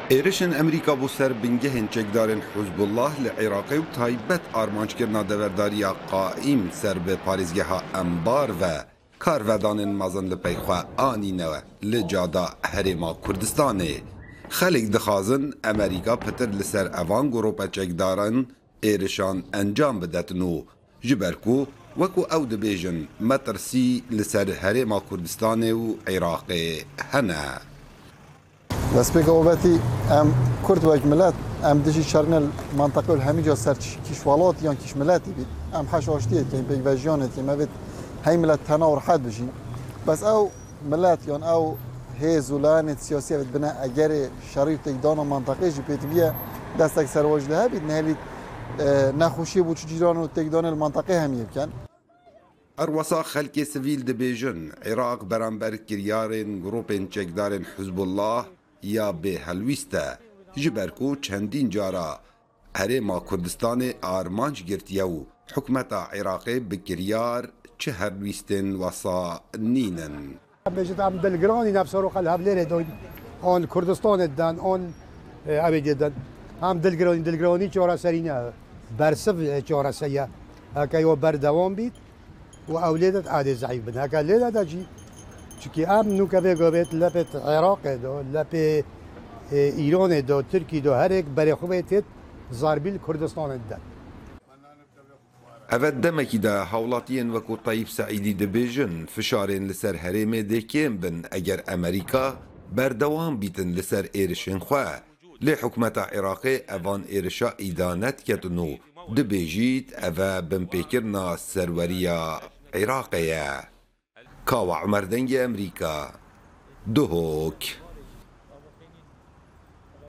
Êrişên Amerîka bo ser bingehên çekdarên Hizbullah li Iraqê û taybet armanckirina deverdariya Qaîm ser bi parêzgeha Enbar ve karvedanên mezin li pey xwe anîne li cada Herêma Kurdistanê. Xelk dixwazin Amerîka pitir li ser evan grûpe çekdaran êrişan encam bidetin û ji ber ku wekû ew dibêjin metirsî li ser Herêma Kurdistanê û Iraqê hene. Destpêka obetî em Kurd wek milet em dijî şerine li menteqe û li hemî ca ser kîş welat yan kîş miletî bît. Em heş aştiyê dikeyîn, pêkvejiyanê dikeyîn, me vêt hey milet tena û rehet bijîn. Bes ew milet yan ew hêz û layanên siyasî ev dibine egerê şerî û têkdana menteqê jî pêdiviye destek serwaj li hebît nehêlît nexweşiyê bo çi cîran û têkdanê li menteqê hemiyê bikin. Her wisa xelkê sivîl dibêjin, Iraq beramber kiryarên grûpên çekdarên Hizbullah ya bê helwîst e, ji ber ku çendîn cara Herêma Kurdistanê armanc girtiye û hikûmeta Iraqê bi kiryar çi helwîstên wisa nînin. Em bêjin em dilgiranî ne bi seroka li Hevlêrê dan an li Kurdistanê dan an ewê dê dan. Em dilgiranî dilgiranî çareserî ne bersiv çareserî ye. Heke yo berdewam bît û ew lê de edê zeîf bin. Heke lê de de jî çikî em nûke vê gavê lepê Iraqê de lepê Îranê de Tirkî de herêk berê xwe vê têt zarbî li Kurdistanê dide. Ev e demekî de hawlatiyên wekû Teyîb Seîdî dibêjin fişarên li ser herêmê dê kêm bin eger Amerîka berdewam bîtin li ser êrişên xwe. Lê hikûmeta Iraqê evan êrişa îdane diketin û dibêjît ev e binpêkirina serweriya Iraqê ye. Kawa Umer Dengê Amerîka, Duhok.